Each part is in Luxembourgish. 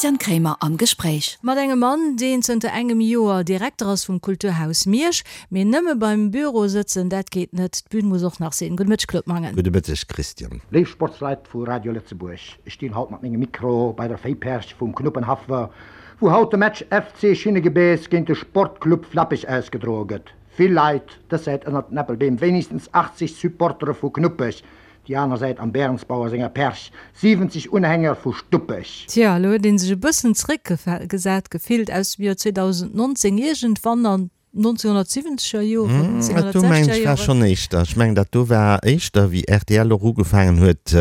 Christian Kremer am Gespréich. Mat engem Mann, deen zënter engem Joer Direkter ass vum Kulturhaus Miersch. Mee nëmme beim Büro sëtzen, dat geet net, d'Bün muss och nach sinn. Gudde Mëtteg, Claude Mangen. Gudde Mëtteg, Christian. Léif Sportsleit vu Radio Lëtzebuerg, ech stinn haut mat mengem Mikro bei der Véiperch vum Knuppenhaff, wou haut de Match FC Schinnegebeess géint de Sportclub Flappech ausgedroe gëtt. Vill Leit, dës Säit ënnert den Äppelbeem wéinegstens 80 Supportere vu Knuppech, déi aner Säit am Bärensbauer senger Perch 70 Unhänger vu Stuppech. Tja, elo huet ee sech e bëssen zeréckgesat gefillt aus dem Joer 2019, iergendwann an 1970er Joren, Dat do mengen 1960er ech war Joren. schonn éischter. Ech mengen dat do war éischter wéi rtl och ugefaangen huet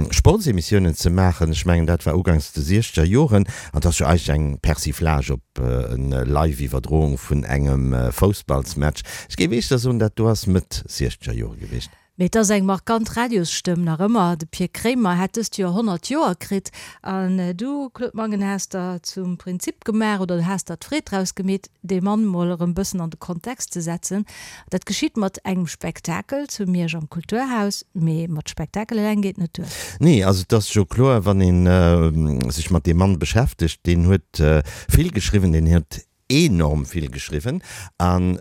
Sportsemissiounen ze maachen. Ech mengen dat war ugangs de siechzeger Joren an et ass jo eigentlech eng Persiflage op en Live-Iwwerdroung vun engem Foussballsmatch. Ech géif éischter soen dat do ass Mëtt siechzeger Jore gewiescht. Mee et ass eng markant Radiosstëmm nach ëmmer. De Pir Kremer hätt dëst Joer 100 Joer kritt. An du, Claude Mangen, has der zum Prinzip gemaach oder has der d'Freed draus gemeet, dee Mann mol erëm bëssen an de Kontext ze setzen. Dat geschitt mat engem Spektakel zu Miersch am Kulturhaus. Mee mat Spektakel eleng geet net duer. Nee, also et ass jo kloer, wann ee sech mat deem Mann beschäftegt, deen huet vill geschriwwen, deen huet enorm vill geschriwwen an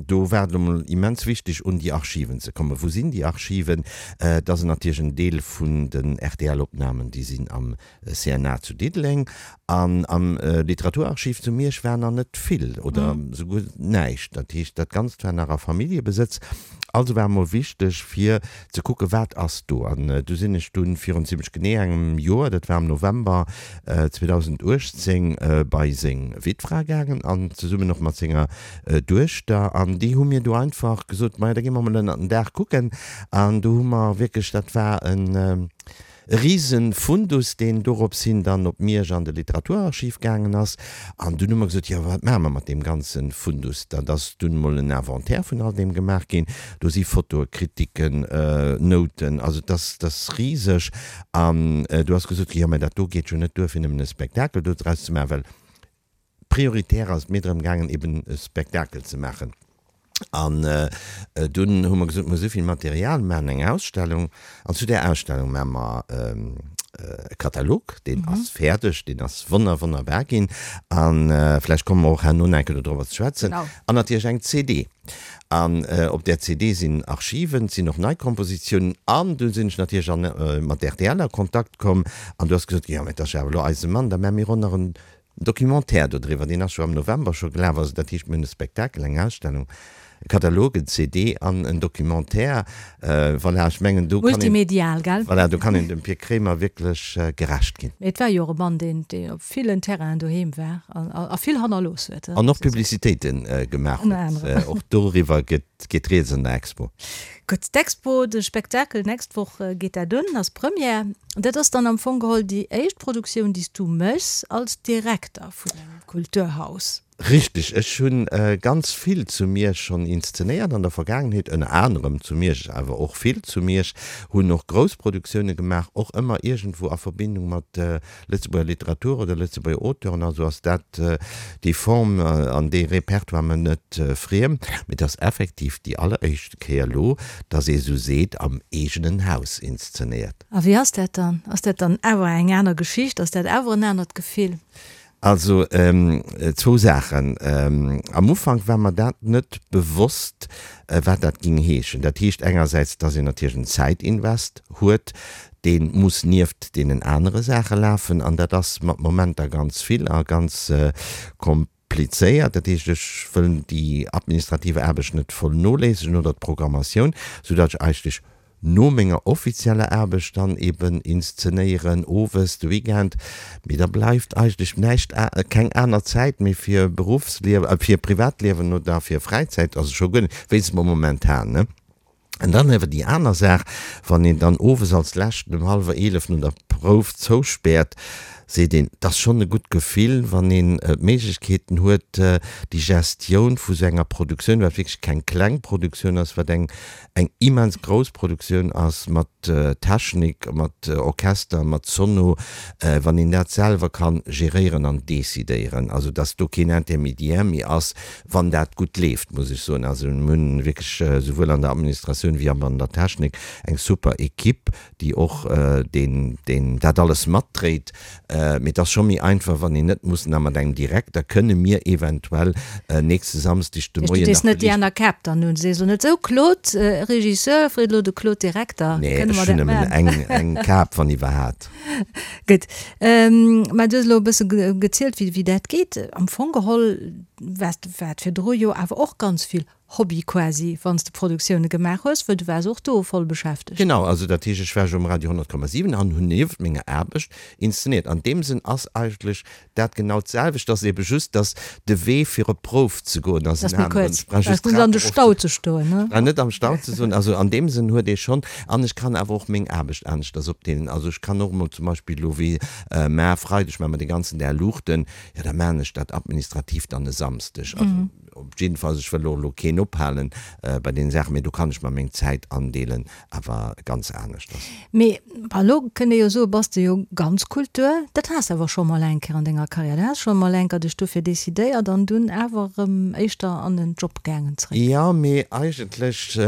do war et elo mol immens wichteg un déi Archiven ze kommen. Wou sinn déi Archiven? Et ass natierlech en Deel vun den RTL-Opnamen, déi sinn am CNA zu Diddeleng an am Literaturarchiv zu Miersch war nach net vill oder souguer näischt. Dat heescht, dat Ganzt war nach a Familljebesëtz. Also war emol wichteg fir ze kucken, wat ass do. An du sinn ech dunn virun zimlech genee engem Joer, dat war am November 2018, bei seng Wittfra gaangen an zesummen och mat senger Duechter. An déi hu mir du einfach gesot, maja, da gi mer mol ënnert den Daach kucken. An do hu mer wierklech, dat war en E rise Fundus, deen dorops hin dann op Miersch an de Literaturarchiv gaangen ass. An dunn hu mer gesot, jo, wat maache mer mat deem ganze Fundus? Dat ass dunn emol en Inventaire vun all deem gemaach ginn. Do si Fotoe, Kritiken, Nouten, also et ass, et ass riseg. An do ass gesot ginn, jo, mä dat do geet jo net duer, fir nëmmen e Spektakel dodraus ze maachen, well Prioritär ass et mir drëm gaangen, eben e Spektakel ze maachen. An dunn hu mer gesot, mir hu souvill Material, mir maachen eng Ausstellung. An zu där Ausstellung maache mer e Katalog, deen ass fäerdeg, deen ass wonner, wonnerbar ginn. A vläicht komme mer och herno nach eng Kéier dodrobber ze schwätzen. An natierlech eng CD. An op där CD sinn Archiven, et sinn och nei Kompositiounen. An du sinn ech natierlech an mat rtl a Kontakt komm. An du ass gesot ginn, jo, mä et ass jo awer elo eise Mann, da maache mir och nach en Documentaire dodriwwer, deen ass jo am November scho gelaf. Also dat heescht, mir hunn e Spektakel, eng Ausstellung, e Katalog, en CD an en Documentaire. Voilà, ech mengen, do kann een, Multimedial, gell? voilà, do kann een dem Pir Kremer wierklech gerecht ginn. Mee et war jo och e Mann, deen, deen op villen Terrainen doheem war an a vill hannerlooss huet. An och Publicitéite gemaach Ënner huet. anerem. Och doriwwer gëtt, geet rieds an der Expo. Gutt, d'Expo, de Spektakel, d'nächst Woch geet dat un, ass Première. Dat ass dann am Fong geholl déi éischt Produktioun, déi s du méchs als Direkter vun engem Kulturhaus. Richteg, ech hu ganz vill zu Miersch schonn inszenéiert an der Vergaangenheet, ënner anerem zu Miersch, awer och vill zu Miersch, hunn och grouss Produktioune gemaach, och ëmmer iergendwou a Verbindung mat Lëtzebuerger Literatur oder Lëtzebuerger Auteuren, also ass dat déi Form an dee Repertoire mer net friem. Mee et ass effektiv déi alleréischte Kéier elo, datt ee sou seet, am eegenen Haus inszenéiert. A wéi ass dat dann? Ass dat dann awer eng aner Geschicht? Ass dat awer en anert Gefill? Also zwou Saachen. Am Ufank war mer dat net bewosst, wat dat géing heeschen. Dat heescht engersäits, datt een natierlech en Zäitinvest huet, dee muss nieft deenen anere Saache lafen an dat ass mat Momenter ganz vill a ganz komplizéiert. Dat heescht, ech wëll déi administrative Aarbecht net voll noléissegen oder d'Programmatioun, soudatt ech eigentlech no menger offizieller Aarbecht dann eben inszenéieren, owes, de Weekend, mee da bleift eigentlech näischt, keng aner Zäit méi fir Beruffsliewen, fir Privatliewen oder fir Fräizäit, also scho guer net, wéinstens mol momentan, ne. An dann awer déi aner Saach, wann een dann owes als leschten um hallwer 11 no der Prouf zouspäert, seet een, 't ass schonn e gutt Gefill, wann een d'Méiglechkeeten huet, déi Gestioun vu sou enger Produktioun, wat wierklech keng kleng Produktioun ass, wat eng eng immens grouss Produktioun ass mat Technik, mat Orchester, mat Sono, wann een dat selwer ka geréieren an decidéieren, also dass do keen Intermédiaire méi ass, wann dat gutt leeft, muss ech soen. Also mir hunn wierklech souwuel an der Administratioun wéi an der Technik eng super Equipe, déi och deen, deen dat alles matdréit. Mee et ass scho méi einfach, wann een net muss na mat engem Direkter, kënne mir eventuell nächste Samsdeg de Moien nach. Du dees net déi aner Käpp dann un, sees elo net esou, Claude, Regisseur, freet elo de Claude, Direkter, Nee, kënne ech mer hunn dat nëmmen maachen? eng, eng Kap, wann iwwerhat. Gutt. Mä du hues elo e bësse gezielt, wéi, wéi dat geet. Am Fong geholl waars de, war et virdru jo awer och ganz vill Hobby quasi, wann s de Produktioune gemaach hues, well du waars och do voll beschäftegt. Genau, also dat heescht, ech war jo um Radio 100,7 an hunn nieft menger Aarbecht inszeniert. An deem Sënn ass eigentlech dat genau d'selwecht, ass ebe just, datt de Wee fir op d'Prouf ze goen ass en aneren. Ech brauch just d'Trap erof ze ze stoen, ne? Ech brauch net am Stau ze soen. Also an deem Sënn huet ee schonn, an ech kann awer och meng Aarbecht aneschters opdeelen. Also ech kann och emol zum Beispill elo wéi mar Freideg maache mer de ganzen Dag Luuchten, jo da maachen ech dat administrativ dann e Samsdeg. Also Op jiddefalls, ech wëll och elo keen ophalen bei deene Saachen, mee do kann ech mer meng Zäit andeelen, awer ganz aneschters. Mee elo kënnt ee jo soen, bass de jo ganz Kultur. Dat has de awer scho mol eng Kéier an denger Karriär. Du has scho mol eng Kéier dech dofir decidéiert an dunn awer erëm éischter an den Job gaangen zréck. Jo, mee eigentlech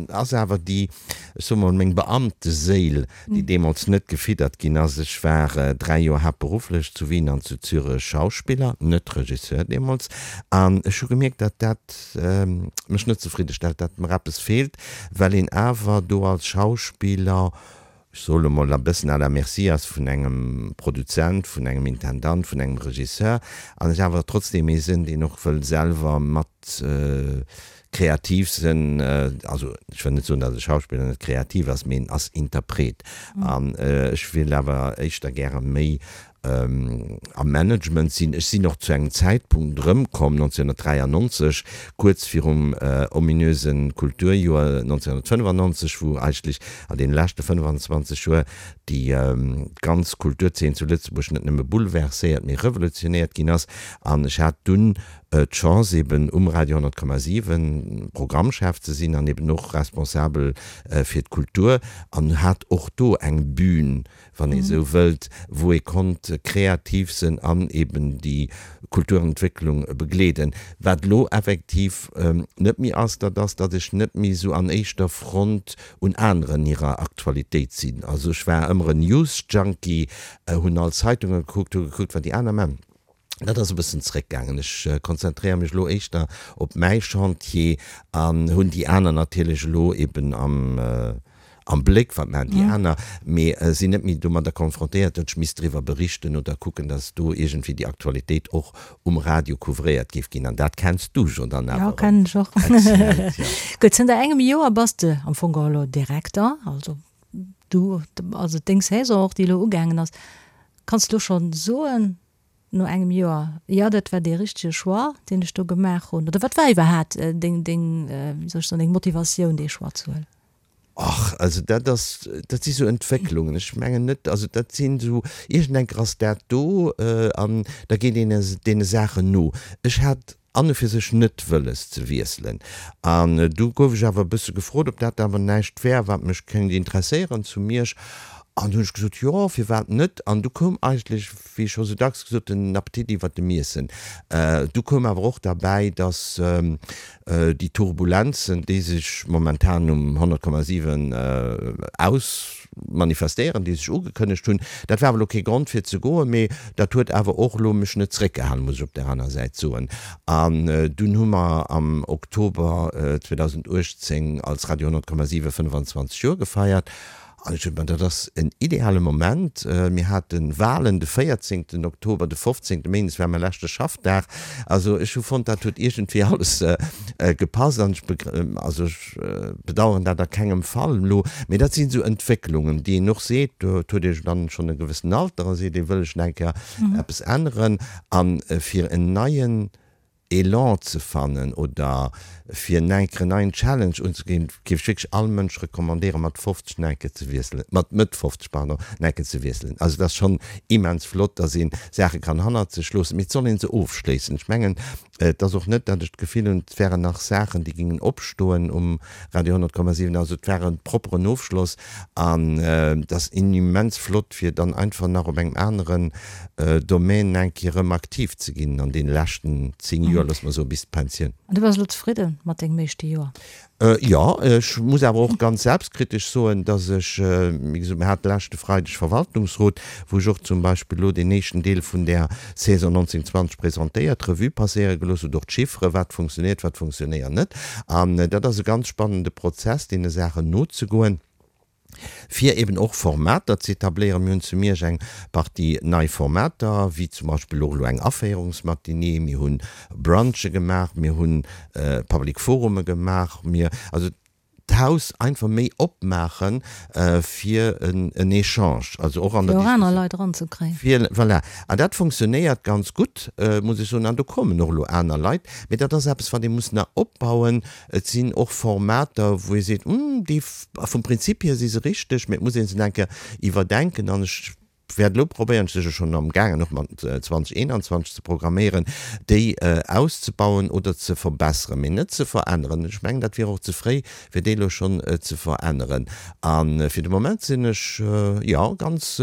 ass awer déi, ech soe mol, meng Beamteséil, déi deemools net gefiddert ginn ass. Ech war 3 Joer haaptberufflech zu Wien an zu Zürech Schauspiller, net Regisseur deemools, an ech hu gemierkt, datt dat mech net zefridde stellt, datt mer eppes feelt, well een awer do als Schauspiller, ech soe lo mol, e bëssen à la merci ass vun engem Produzent, vun engem Intendant, vun engem Regisseur, an ech awer trotzdeem ee sinn, deen och wëll selwer mat Kreativ sinn, also ech wëll net soen, datt e Schauspiller net kreativ ass, mee en ass Interpret. An ech wéilt awer éischter gäre méi am Management sinn. Ech sinn och zu engem Zäitpunkt erëmkomm, 1993, kuerz virum ominöse Kulturjoer 1995, wou eigentlech an deene leschte 25 Joer déi ganz Kulturzeen zu Lëtzebuerg net nëmme bouleverséiert, mee revolutionéiert ginn ass. An ech hat dunn d'Chance eben um Radio 100,7 Programmchef ze sinn an eben och responsabel fir d'Kultur an hat och do eng Bühn, wann ee sou wëllt, wou ee konnt kreativ sinn an eben déi Kulturentwécklung begleeden. Wat elo effektiv net méi ass, dat ass, datt ech net méi esou an éischter Front un aneren hirer Aktualitéit sinn. Also ech war ëmmer en News-Junkie, hunn all Zeitunge gekuckt, hu gekuckt, wat déi aner man. Dat ass e bëssen zréckgaangen. Ech konzentréiere mech elo éischter op mäi Chantier an hunn déi aner natierlech elo eben am am Bléck, wat maachen déi aner, mee sinn net méi domadder konfrontéiert, datt ech misst driwwer berichten oder kucken, datt do iergendwéi déi Aktualitéit och um Radio couvréiert géif ginn. An dat kenns du jo dann awer erëm kennen ech och. Exzellent, jo. Gutt, zënter engem Joer bass de am Fong geholl elo Direkter, also du, also deng Saison och, déi elo ugaangen ass. Kanns de elo schonn soen, no engem Joer, jo dat war dee richtege Choix, deen ech do gemaach hunn? Oder wat war iwwerhaat deng, deng, wéi soll ech soen, deng Motivatioun, dee Choix ze huelen? Och, also dat ass, dat si sou Entwécklungen. Ech mengen net, also dat sinn esou, iergendenker ass dat do an da geet een deene Saachen no. Ech hat an e fir sech net wëlles ze wiesselen. An du gouf ech awer e bësse gefrot, ob dat awer näischt wär, wat mech kéint interesséieren zu Miersch. An du hunn ech gesot, jo, firwat net? An du koum eigentlech, wéi scho sou dacks gesot, den Appetit iwwert dem Iessen. Du koum awer och derbäi, dass déi Turbulenzen, déi sech momentan um 100,7 aus. Manifestéieren, déi sech ugekënnegt hunn. Dat war awer elo kee Grond fir ze goen, mee dat huet awer och elo mech net zréckgehalen, muss ech op där aner Säit soen. An dunn hu mer am Oktober 2018 als Radio 100,7 25 Joer gefeiert. An ech hunn, ma dat ass en ideale Moment. Mir hate Wahlen de 14 Oktober, de 15 Méindes war mäi leschte Schaffdag. Also ech hu fonnt, dat huet iergendwéi alles gepasst an ech, also ech, bedauern dat a kengem Fall elo, mee dat sinn esou Entwécklungen, déi een och seet, do huet ee dann schonn e gewëssen Alter a seet ee wëll ech nach eng Kéier eppes änneren. A fir en neien Elan ze fannen oder fir nach eng Kéier en neien Challenge unzeginn, géif ech wierklech all Mënsch recommandéieren, mat 50 nach eng Kéier ze wiesselen, mat Mëtt 50, pardon, nach eng Kéier ze wiesselen. Also et ass schonn immens flott, dass ee Saache kann hannert sech loossen, mee et soll ee se ofschléissen. Ech mengen, Et ass och net, datt ech d'Gefill hunn, et wären nach Saachen, déi gingen opstoen um Radio 100,7. Also et war e propperen Ofschloss an et ass immens flott, fir dann einfach nach op engem aneren Domaine eng Kéier erëm aktiv ze ginn an deene leschten 10 Joer, loosse mer soen, bis d'Pensioun. An du bass elo zefridde mat dengem éischte Joer? Jo, ech muss awer och ganz selbstkritesch soen, dass ech, wéi gesot, mir hate leschte Freideg Verwaltungsrot, wou ech och zum Beispill elo deen éischten Deel vun där Saison 19, 20 presentéiert, Revue passéiere gelooss hunn, och d'Chiffere, wat funktionéiert, wat funktionéiert net. An dat ass e ganz spannende Prozess, deene Saachen nozegoen. fir eben och Formater ze etabléieren. Mir hunn zu Miersch eng Partie nei Formater, wéi zum Beispill och elo eng Aféierungsmatinée, mir hu Brunche gemaach, mir hu Public Forume gemaach, mir, also d'Haus einfach méi opmaache fir en Echange, also och an der Fir och aner Leit eranzekréien. Fir, voilà. An dat funktionéiert ganz gutt, muss ech soen. An do kommen och elo aner Leit. Mee dat ass eppes, wat ee muss nach opbauen. Et sinn och Formater, wou ee seet, Hm, déi vum Prinzip hier si se richteg, mee et muss ee se nach eng Kéier iwwerdenken. An ech wäert elo probéieren, ech si jo schonn amgaangen och mat 2021 ze programméieren, déi auszebauen oder ze verbesseren, mee net ze veränneren. Ech mengen, dat wier och ze fréi, fir déi elo schonn ze veränneren. A fir de Moment sinn ech, jo, ganz,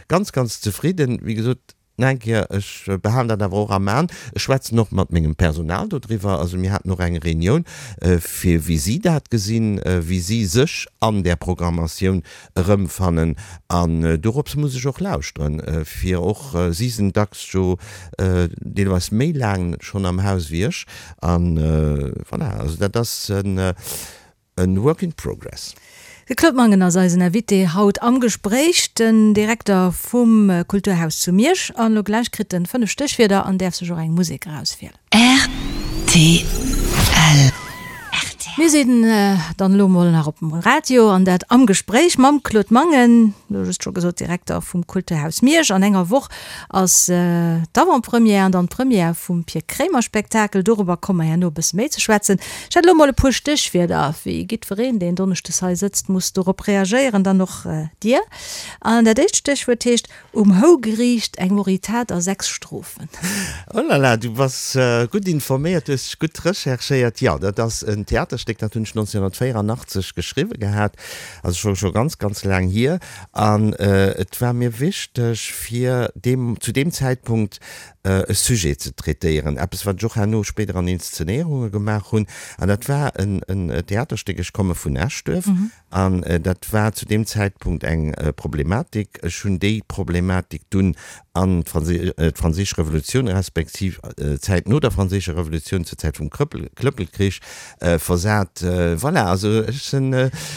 ganz, ganz zefridden. Wéi gesot, Nach eng Kéier, ech behalen dat awer och am An. Ech schwätzen och mat mengem Personal dodriwwer. Also mir haten och eng Reunioun, fir wéi si dat gesinn, wéi si sech an där Programmatioun erëmfannen. An dorops muss ech och lauschteren, fir och, si sinn dacks jo deelweis méi laang schonn am Haus wéi ech. An voilà, also dat ass en. E work in progress. De Claude Mangen ass eisen Invité haut am Gespréich, den Direkter vum Kulturhaus zu Miersch. An elo gläich kritt en 5 Stéchwierder an däerf sech och eng Musek erauswielen. Rtl. Mir sinn dann elo mol nach op dem Radio an dat am Gespréich mam Claude Mangen, elo just scho gesot, Direkter vum Kulturhaus Miersch. An enger Woch ass d'Avant-Première an dann d'Première vum Pir Kremer Spektakel. Dorobber komme mer herno e bësse méi ze schwätzen. Ech hätt elo mol e puer Stéchwierder, wéi giddwereen, deen donneschdes hei sëtzt, muss dorop reagéieren, dann och Dir. An dat éischt Stéchwuert heescht, Um Hougeriicht, eng Moritat a 6 Strofen. Oh la la, du bass gutt informéiert, du hues dech gutt recherchéiert. Jo, dat ass en Theaterstéck, dat hunn ech 1984 geschriwwe gehat, also scho scho ganz, ganz laang hier. An et war mir wichteg, fir deem, zu deem Zäitpunkt e Sujet ze traitéieren, eppes wat ech och herno spéider an Inszenéierunge gemaach hunn, an dat war en Theaterstéck, Ech komme vun Eschduerf, an dat war zu deem Zäitpunkt eng Problematik. Ech hunn déi Problematik dunn an d'Franséisch Revolutioun respektiv d'Zäit no der Franséischer Revolutioun, zur Zäit vum Klëppelkrich versat. Voilà, also ech sinn,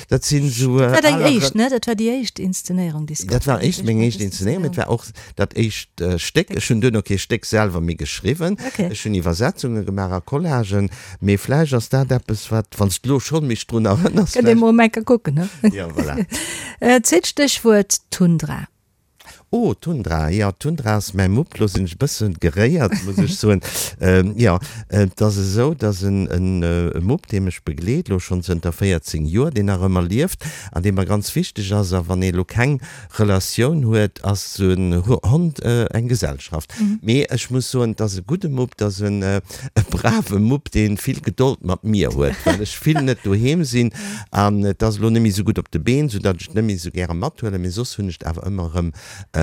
dat sinn esou. Dat war deng éischt, ne? Dat war déi éischt Inszenéierung, déi s de. Dat war éischt, meng éischt Inszenéierung, mee et war och Dat éischt Stéck, ech hunn duerno kee Stéck selwer méi geschriwwen, ech hunn Iwwersetzunge gemaach a Collagen, mee vläicht ass dat eppes, wat, wann s de elo schonn mech drun erënners, Kënnt ee mol eng Kéier kucken, ne? Jo, voilà. Zweet Stéchwuert, Tundra. Oh, Tundra, jo, Tundra ass mäi Mupp. Lo sinn ech e bësse geréiert, muss ech soen. Jo, et ass esou, dass en e Mupp, dee mech begleet, elo schonn zënter 14 Joer, deen nach ëmmer lieft an dee mer ganz wichteg ass. A wann ee elo keng Relatioun huet, ass esou en Hond eng Gesellschaft. Mee ech muss soen, et ass e gudde Mupp, et ass e brave Mupp, dee vill Gedold mat mir huet, well ech vill net doheem sinn. An et ass elo net méi esou gutt op de Been, soudatt ech et net méi esou gäre mathuelen. Mee soss hunn ech et awer ëmmer erëm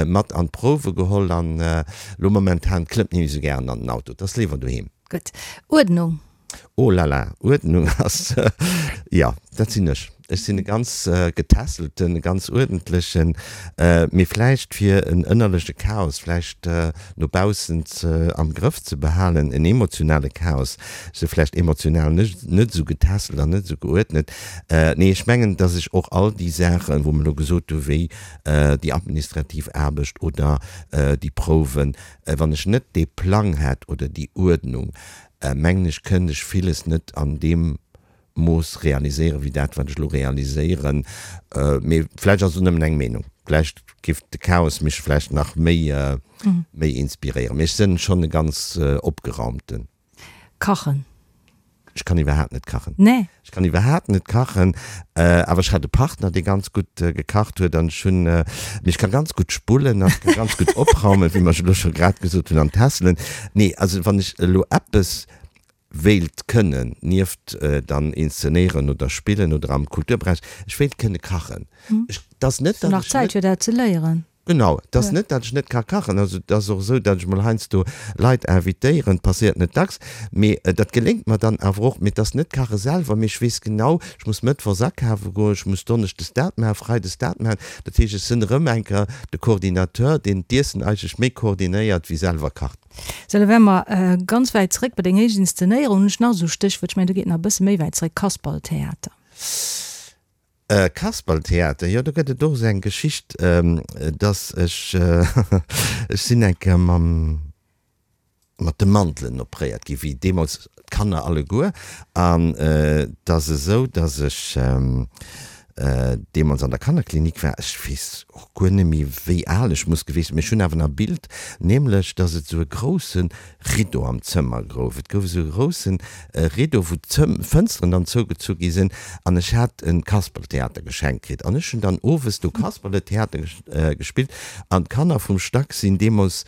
mat an d'Prouwe geholl. An elo momentan klëmmt net méi esou gären an den Auto, et ass léiwer doheem. Gutt. Uerdnung. Oh la la, Uerdnung ass, jo, dat sinn ech. Ech sinn e ganz getässelten, e ganz uerdentlechen, mee vläicht fir en ënnerleche Chaos vläicht no baussen ze am Grëff ze behalen, en emotionale Chaos, ech si vläicht emotional net esou getässelt an net esou geuerdnet. Nee, ech mengen, datt ech och all déi Saachen, wou mer elo gesot hu wéi déi administrativ Aarbecht oder déi Prouwen, wann ech net dee Plang hätt oder déi Uerdnung, mengen ech, kënnt ech villes net an deem Mooss realiséieren, wéi dat, wat ech elo realiséieren. Mee vläicht ass et och nëmmen eng Meenung. Vläicht géif de Chaos mech vläicht nach méi, méi inspiréieren. Mee ech sënn schonn e ganz Opgeraumten. Kachen. Ech kann iwwerhaapt net kachen. Nee. Ech kann iwwerhaapt net kachen, awer ech hat e Partner, dee ganz gutt gekacht huet an ech hunn, mee ech ka ganz gutt spullen an ech ka ganz gutt opraumen, wéi mer elo scho grad gesot hunn, an tässelen. Nee, also wann ech elo eppes wéilt kënnen, nieft dann inszenéieren oder spillen oder am Kulturberäich, ech wéilt kënne kachen. Ech, 't ass net, Hast du datt nach ech Zäit net. fir dat ze léieren? Genau, et ass net, datt ech net ka kachen. Also et ass och esou, datt ech mol heiansdo Leit invitéieren, passéiert net dacks, mee dat geléngt mer dann awer och. Mee et ass net kache selwer, mee ech weess genau, ech muss mëttwochs akafe goen, ech muss donneschdes dat maachen, freides dat maachen. Dat heescht, ech sinn erëm eng Kéier de Coordinateur, deen d'Iessen eigentlech méi koordinéiert wéi selwer kacht. Sou, da wäre mer ganz wäit zréck bei deng éischt Inszenéierung. Hunn ech nach esou Stéchwuert, ech mengen, do geet nach e bësse méi wäit zréck, Kasperltheater. Kasperltheater, jo do gëtt et och esou eng Geschicht, dass ech, ech sinn eng Kéier mam, mat de Mandelen opréiert gi wéi deemools d'Kanner alleguer an et ass esou, dass ech deemools an der Kannerklinik war, ech weess och guer net méi wéi al ech muss gewiescht sinn, mee ech hunn awer nach e Bild, nämlech dass et esou e grousse Rideau am Zëmmer gouf. Et gouf esou e grousse Rideau, wou d'Fënsteren dann zougezu gi sinn an ech hat e Kasperltheater geschenkt kritt an ech hunn dann owes do Kasperletheater gespillt an d'Kanner vum Stack sinn deemools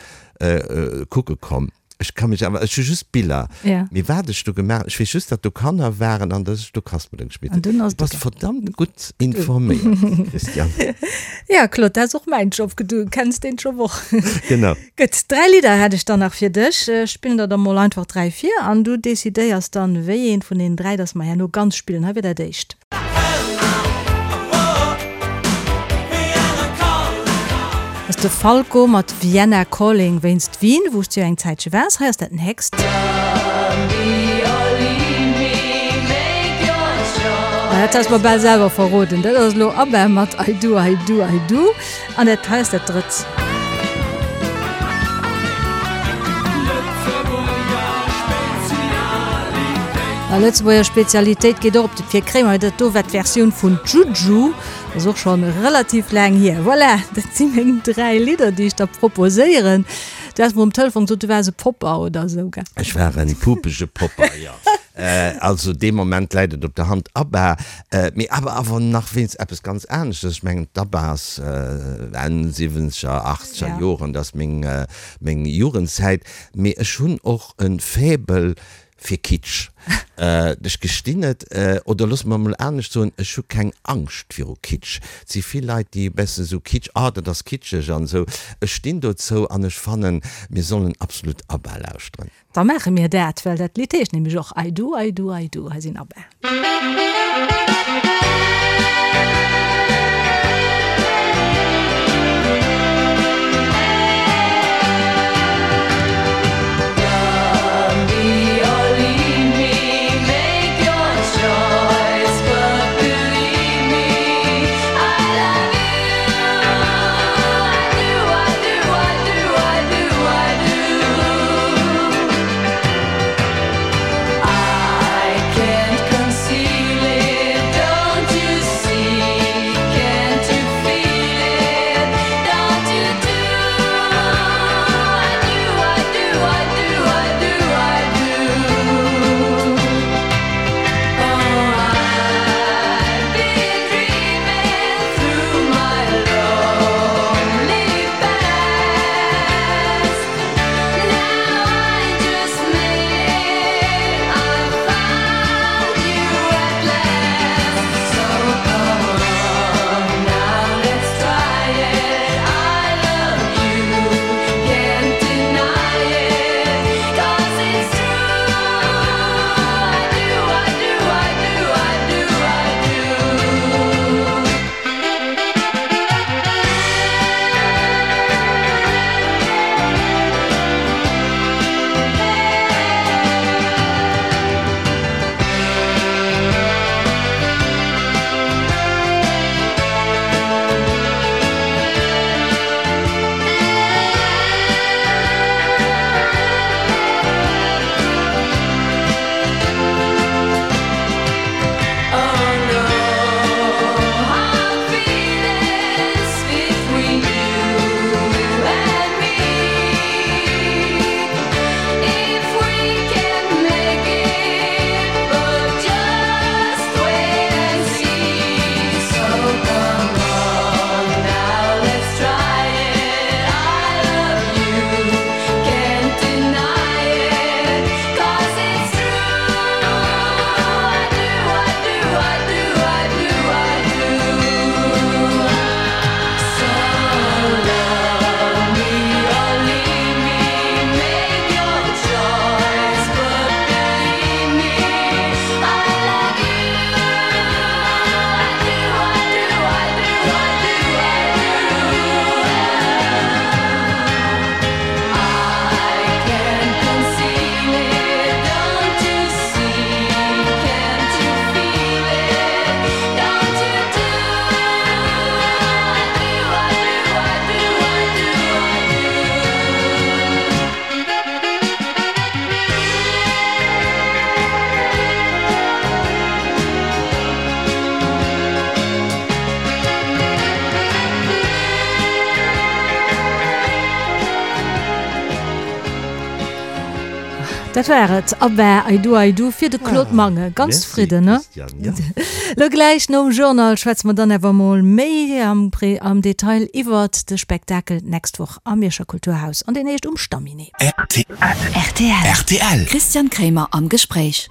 kucke komm. Ech ka mech awer, ech hu just Biller, mee wat ech do gemaach, ech weess just, datt do Kanner waren an datt ech do Kasperle gespillt hunn. Du bass verdammt gutt informéiert, Christiane. Ja, Claude, dat ass och mäin Job, du kenns deen Job och. Genau. Gutt, 3 Lidder hätt ech dann nach fir dech. Ech spillen der der mol einfach 3 vir an du decidéiers dann, wéi eent vun deenen 3 dass mer herno ganz spillen. Hei wier dat éischt. Dat ass de Falco mat Vienna Calling wéinst Wien, wou s du jo eng Zäitche waars. Hei ass dat nächst. Dat has mer bal selwer verroden. Dat ass elo ABBA mat I do, I do, I do. An dat hei ass dat drëtt. A Lëtzebuerger Spezialitéit geet och op de Pir Kréimer. Dat do war d'Versioun vun Juju. Ass och schonn relativ laang hier. Voilà, dat si meng 3 Lidder, déi ech der proposéieren. Du has mer um Telefon gesot, du waars e Popper oder esou, gell? Ech war en pupege Popper, jo. Also dee Moment läit et op der Hand, ABBA. Mee ABBA awer nach wéinst eppes ganz aneschtes. Ech mengen d'ABBA ass Enn siwwenzeger, achtzeger Joren, dat ass meng, meng Jugendzäit. Mee ech hunn och e Faible fir Kitsch. Ech gestinn et, oder loosse mer emol anescht soen, ech hu keng Angscht viru Kitsch. Et si vill Leit, déi e bessen esou Kitsch, ah dat ass kitscheg an esou. Ech stinn dozou an ech fannen, mir sollen absolut ABBA lauschteren. Da maache mir dat, well dat Lidd heescht nämlech och I do, I do, I do. Hei sinn ABBA. Dat war et, ABBA, I Do I Do fir de Claude Mangen. Ganz zefridden, ne? Lo gläich nom Journal schwätze mer dann awer mol méi am Detail iwwert de Spektakel d'nächst Woch am Mierscher Kulturhaus an deen heescht Um Stamminet. Rtl. Christian Kremer am Gespréich.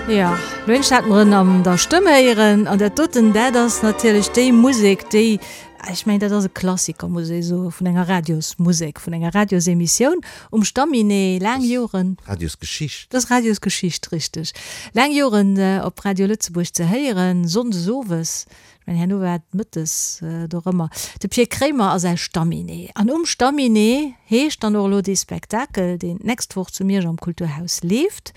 Jo, lo eent hat mer en an der Stëmm héieren an dat doten, dat ass natierlech déi Musek, déi, ech mengen, dat ass e Klassiker, muss ee soen, vun enger Radiosmusek, vun enger Radiosemissioun um Stamminet, laang Joren. Radiosgeschicht. Dat ass Radiosgeschicht, richteg. Laang Joren op Radio Lëtzebuerg ze héieren, sonndes owes. Ech mengen, herno war et mëttes dorëmmer. De Pir Kremer a säi Stamminet. An um Stamminet heescht dann och elo dee Spektakel, deen d'nächst Woch zu Miersch am Kulturhaus leeft,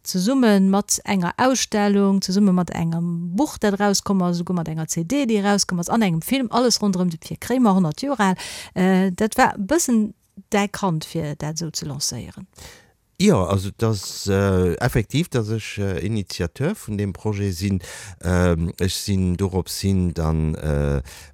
zesumme mat enger Ausstellung, zesumme mat engem Buch, dat erauskomm ass, esouguer mat enger CD, déi erauskomm ass, an engem Film, alles ronderëm de Pir Kremer, 100 Joer al. Dat war e bëssen däi Kand, fir dat esou ze lancéieren. Jo, also et ass effektiv, datt ech Initiateur vun deem Projet sinn. Ech sinn dorops hin dann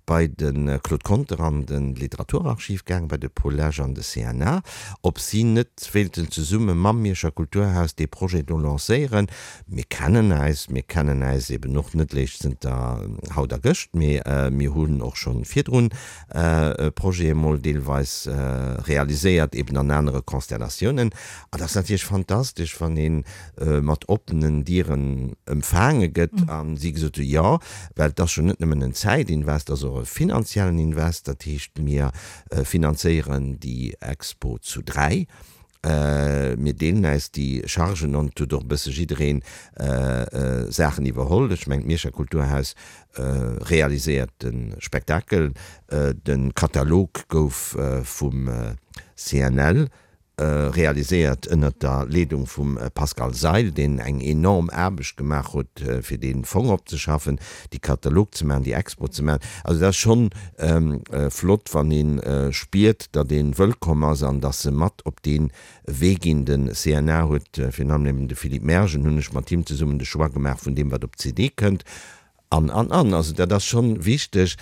bei de Claude Conter an de Literaturarchiv gaang, bei de Paul Lesch an de CNA, ob si net wéilten zesumme mam Mierscher Kulturhaus dee Projet do lancéieren. Mir kennen äis, mir kennen äis eben och net léischt zënter haut a gëscht, mee mir hunn och schonn virdrun Projete mol deelweis realiséiert, eben an anere Konstellatiounen. An dat ass natierlech fantastesch, wann ee mat oppenen Dieren empfaange gëtt a si gesot hu jo, well et ass jo net nëmmen en Zäitinvest, et ass och e finanziellen Invest. Dat heescht, mir finanzéieren déi Expo zu 3. Mir deelen äis déi Chargen an et huet och e bësse jiddereen Saachen iwwerholl. Ech mengen, d'Mierscher Kulturhaus realiséiert de Spektakel. De Katalog gouf vum CNL realiséiert ënnert der Leedung vum Pascal Seil, deen eng enorm Aarbecht gemaach huet, fir dee Fong opzeschaffen, déi Katalog ze maachen, déi Expo ze maachen. Also dat ass schonn flott, wann ee spiert, datt ee wëllkomm ass an datt se mat op dee Wee ginn. De CNA huet, virun allem eben de Philippe Mergen, hunn ech mat him zesummen de Choix gemaach vun deem, wat op d'CD kënnt. An, an, an. Also dat ass schonn wichteg.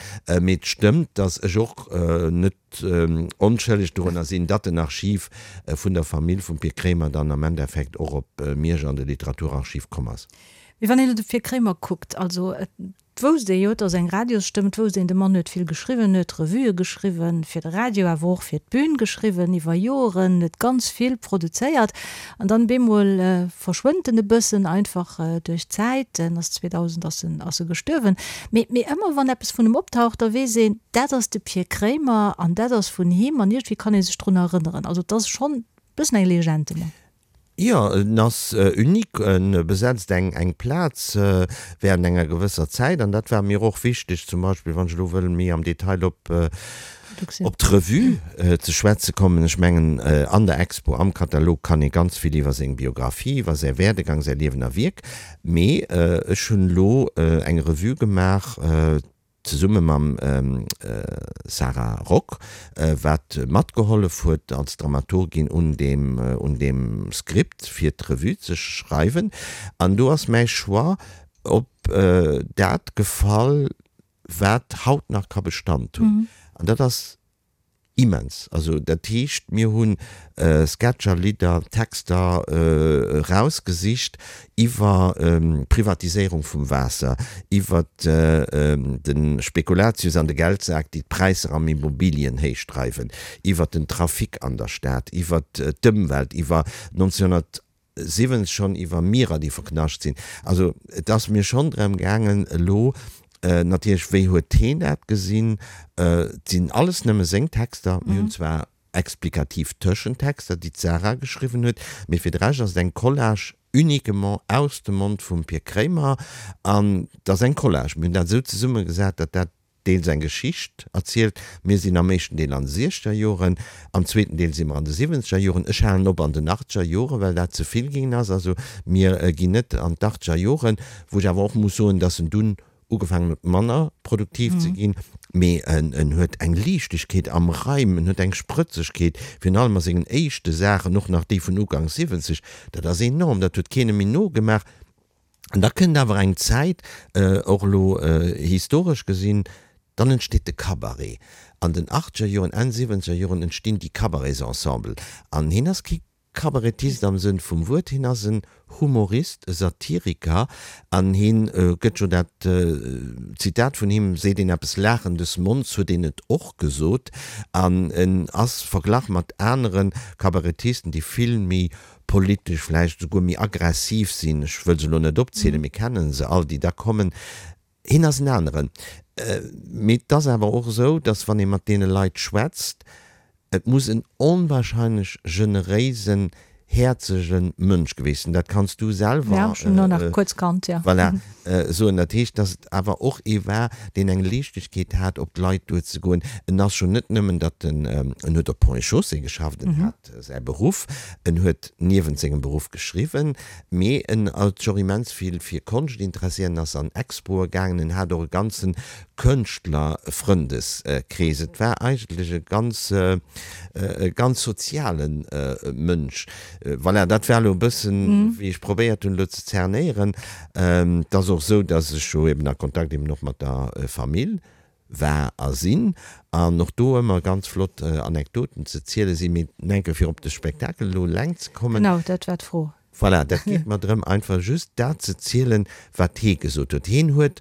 Mee et stëmmt, datt ech och net onschëlleg dorunner sinn, datt den Archiv vun der Famill vum Pir Kremer dann am Endeffekt och op Miersch an de Literaturarchiv komm ass. Mee wann een elo de Pir Kremer kuckt, also et wousst ee jo, et ass eng Radiosstëmm, et wousst een, de Mann huet vill geschriwwen, huet Revuë geschriwwen fir de Radio, awer och fir d'Bün geschriwwen iwwer Joren, huet ganz vill produzéiert. An dann bemol verschwënnt en e bëssen, einfach duerch d'Zäit, en ass 2000 ass en ass e gestuerwen. Mee mee ëmmer wann eppes vun em optaucht, da weess een, dat ass de Pir Kremer an dat ass vun him an iergendwéi kann ee sech drun erënneren. Also et ass schonn e bëssen eng Legend, de Mann. Jo, en ass unique, en besetzt eng eng Plaz während enger gewësser Zäit an dat war mir och wichteg, zum Beispill wann ech elo wëll méi am Detail op op d'Revue ze schwätze kommen. Ech mengen an der Expo, am Katalog kann ee ganz vill iwwer seng Biografie, iwwer säi Werdegang, säi Liewen a Wierk, mee ech hunn elo eng Revue gemaach, zesumme mam Sarah Rock, wat matgehollef huet als Dramaturgin un deem un deem Skript fir d'Revue ze schreiwen. An do ass mäi Choix op dat gefall, wat haut nach ka Bestand hunn. An dat ass Immens. Also dat heescht, mir hu Sketcher, Lidder, Texter erausgesicht iwwer d'Privatiséierung vum Waasser, iwwer de Spekulatius an de Geldsak, déi d'Präisser am Immobilien héichdreiwen, iwwer den Trafic an der Stad, iwwer d'Ëmwelt, iwwer 1900. 70 schonn iwwer Mierer, déi verknascht sinn. Also et ass mir schonn drëm gaangen elo natierlech, wéi huet heen dat gesinn? Et sinn alles nëmme seng Texter. Mir hunn zwar explikativ Tëschentexter, déi d'Sarah geschriwwen huet, mee fir de Rescht ass et eng Collage uniquement aus dem Mond vum Pir Kremer. An et ass eng Collage. Mir hunn dat esou zesummegesat, datt dat deels eng Geschicht erzielt. Mir sinn am éischten Deel an de siechzeger Joren, am zweeten Deel si mer an de siwwenzeger Joren. Ech halen op an den achtzeger Joren, well dat ze vill ginn ass. Also mir ginn net an d'achtzeger Joren, wou ech awer och muss soen, dass en dunn ugefaangen huet manner produktiv ze ginn. Mee en huet eng Liichtegkeet am Reim, en huet eng Sprëtzegkeet, virun allem a sengen éischte Saachen, och nach déi vun Uganks 70, dat ass enorm, dat huet keen méi nogemaach. An da kënnt awer eng Zäit, och elo historesch gesinn, dann entsteet de Cabaret. An den achtzeger Joren, Enn siwwenzeger Joren entstinn déi Cabaretsensemblen. An hien ass kee Kabarettist am Sënn vum Wuert, hien ass en Humorist, e Satiriker an hien gëtt jo dat Zitat vun him, seet een eppes Laachen des Monds, huet een et och gesot. An en ass verglach mat anere Kabarettisten, déi vill méi politesch vläicht esouguer méi aggressiv sinn, ech wëll se elo net opzielen, mir kennen se all, déi da kommen, hien ass en aneren. Mee et ass awer och esou, datt wann ee mat deene Leit schwätzt, et muss en onwahrscheinlech generéisen, häerzege Mënsch geweest sinn. Dat kanns du selwer. Ja, ech hunn en och nach kuerz kannt, jo. Voilà, soen. Dat heescht, datt et awer och ee war, deen eng Liichtegkeet hat, op d'Leit duerzegoen. En ass jo net nëmmen, datt en, en huet op Ponts et Chaussées geschafft, en hat säi Beruff, en huet niewent sengem Beruff geschriwwen, mee en huet sech och immens vill fir Konscht interesséiert, en ass an Expoe gaangen, en hat och e ganze Kënschtlerfrëndeskrees. Et war eigentlech e ganz, e ganz soziale Mënsch. Voilà, dat war elo e bëssen, wéi ech probéiert hunn elo ze zernéieren. Et ass och esou, datt ech jo eben a Kontakt eben och mat der Famill war a sinn, an och do ëmmer ganz flott Anekdoten ze ziele sinn, mee enke fir op de Spektakel elo eleng ze kommen. Genau, dat war d'Fro. Voilà, dat geet mer drëm, einfach just dat ze zielen, wat hee gesot huet. Heen huet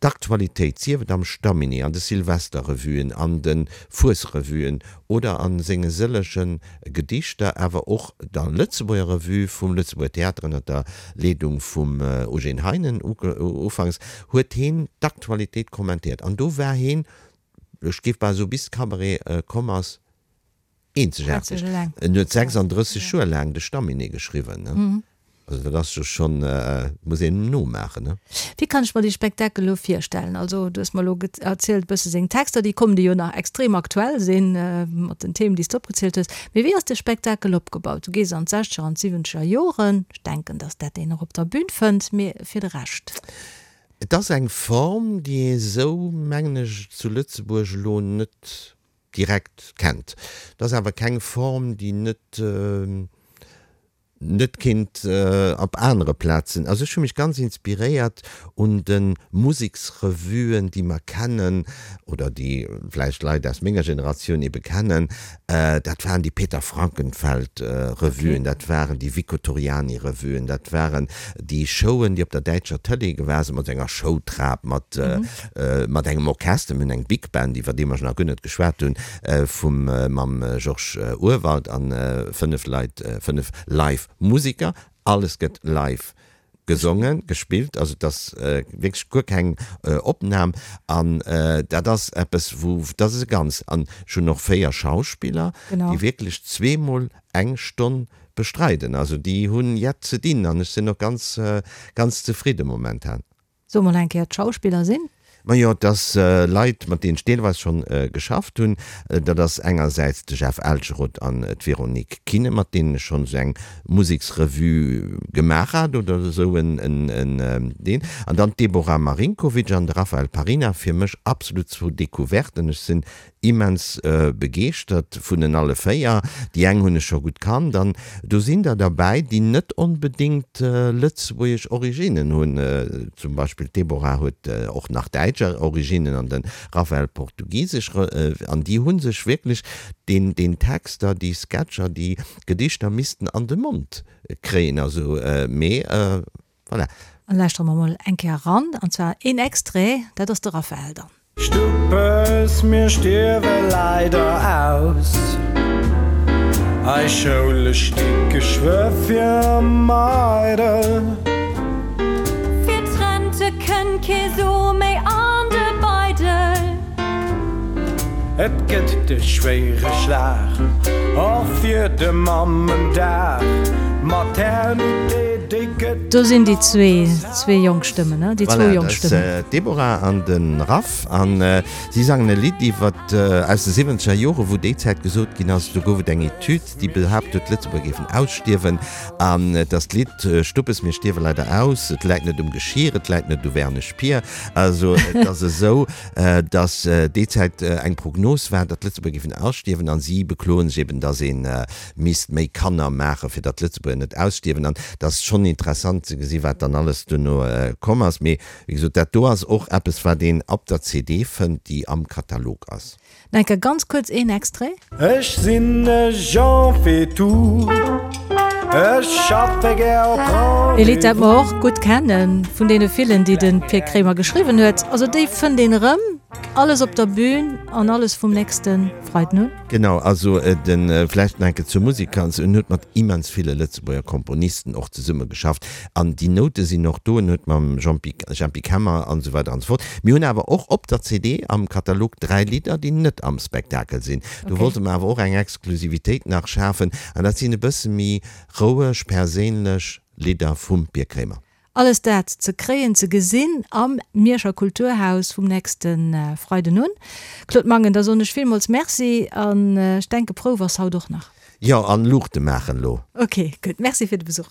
d'Aktualitéit, sief et am Stamminet, an de Silvesterrevuen, an de Fuesrevuen oder a senge sëllege Gedichter, awer och der Lëtzebuerger Revue vum Lëtzebuerger Theater ënner der Leedung vum Eugène Heinen ufanks, huet heen d'Aktualitéit kommentéiert. An do war heen, ech géif bal soen, bis de Cabaret komm ass, eenzegaarteg. En huet 36 Joer laang de Stamminet geschriwwen. Also dat ass jo schonn, muss een em nomaachen, ne? Wéi kann ech mer dee Spektakel elo virstellen? Also du hues mer elo erzielt e bësse seng Texter, déi kommen, déi jo nach extrem aktuell sinn, mat den Themen, déi s de opgezielt hues. Mee wéi ass de Spektakel opgebaut? Du gees an d'Sechzeger an d'Siwwenzeger Joren, ech denken, datt dat een och op der Bühn fënnt, mee fir de Rescht? Et ass eng Form, déi ee sou, mengen ech, zu Lëtzebuerg elo net direkt kennt. Et ass awer keng Form, déi net, net kinnt op anere Plazen. Also ech hu mech ganz inspiréiert un de Museksrevuen, déi mer kennen oder déi vläicht Leit aus menger Generatioun ebe kennen. Dat waren déi Peter Frankenfeld Revuen, dat waren déi Vico Torriani Revuen, dat waren déi Showen, déi op der däitscher Tëlee gewa sinn, mat enger Showtrap, mat mat engem Orchester, mir hunn eng Big Band, iwwer déi mer nach guer net geschwat hunn, vum mam Georges Urwald an 5 Leit, 5 live Musiker. Alles gëtt live gesongen, gespillt, also et ass wierklech guer keng Opnam an dat ass eppes wou, dat ass e ganz, an ech hunn och 4 Schauspiller, déi wierklech zweemol eng Stonn bestreiden, also déi hunn jett ze dinn an ech sinn och ganz, ganz zefridde momentan. So mol eng Kéier d'Schauspiller sinn. Majo, et ass Leit, mat deenen ech deelweis schonn geschafft hunn. Dat ass engersäits de Jeff Elcheroth an d'Véronique Kinnen, mat deenen ech schonn esou eng Museksrevue gemaach hat oder esou en deen. An dann d'Deborah Marinkovic an de Raphael Parina, fir mech absolut zwou Decouverten. Ech sinn Immens begeeschtert vun en alle 4. Déi eng hunn ech scho gutt kannt an do sinn der derbäi, déi net onbedéngt lëtzebuergesch Originnen hunn. Zum Beispill d'Deborah huet och nach däitsch Originnen an de Raphael portugisesch. An déi hu sech wierklech deen deen Texter, déi Sketcher, déi Gedichter missten an de Mond kréien. Also mee voilà. An lauschtere mer mol eng Kéier eran, an zwar een Extrait, dat ass de Raphael dann. Stuppes, mir stierwe leider aus. Eis Schoule sti geschwë fir eidel. Fir d'Rente kënnt kee Su méi an de Beidel. Et gëtt de schwéiere Schlag och fir de Mammendag. D'Maternité, déi gëtt. Do sinn déi zwee, zwee jonk Stëmmen, ne? Déi zwou Voilà, jonk dat ass Stëmmen. d'Deborah an de Raph an si sangen e Lidd iwwert aus de siwwenzeger Jore wou déi Zäit gesot ginn ass, do gouf et eng Etüd, déi behaapt huet, d'Lëtzebuerger géifen ausstierwen an et ass d'Lidd Stuppes, mir stierwe leider aus, et läit net um Geschir, et läit net u Wernesch Pier. Also et ass esou, datt déi Zäit eng Prognos war, datt d'Lëtzebuerger géifen ausstierwen an si bekloen sech eben, datt ee misst méi Kanner maachen, fir datt d'Lëtzebuerger net ausstierwen. An et ass schonn interessant. interessant ze gesi wat dann alles duerno komm ass. Mee wéi gesot, dat do ass och eppes wat een op der CD fënnt, déi am Katalog ass. Enke ganz kuerz een Extrait. Ech sinn e Jean Faitout, ech schaffe gär op Rendez-vous. Ee Lidd dat mer och gutt kennen, vun deene villen déi de Pir Kremer geschriwwen huet. Also déi fënnt een erëm, alles op der Bühn an alles vum nächste Freiden un. Genau, also de vläicht nach enke zur Musek, also en huet mat immens ville Lëtzebuerger Komponisten och zesumme geschafft an déi Noute sinn och do, en huet mam Jean-Pi, Jempy Kemmer an esou weider an esou fort. Mir hunn awer och op der CD am Katalog 3 Lidder, déi net am Spektakel sinn. Do wollte mer awer och eng Exklusivitéit nach schafen an dat sinn e bësse méi roueg, perséinlech Lidder vum Pir Kremer. Alles dat ze kréien, ze gesinn am Mierscher Kulturhaus vum nächste Freiden un. Claude Mangen, da soen ech villmools Merci an ech denke Prouf ass haut och nach. Jo, an Luuchte maachen elo. Ok, gutt. Merci fir de Besuch.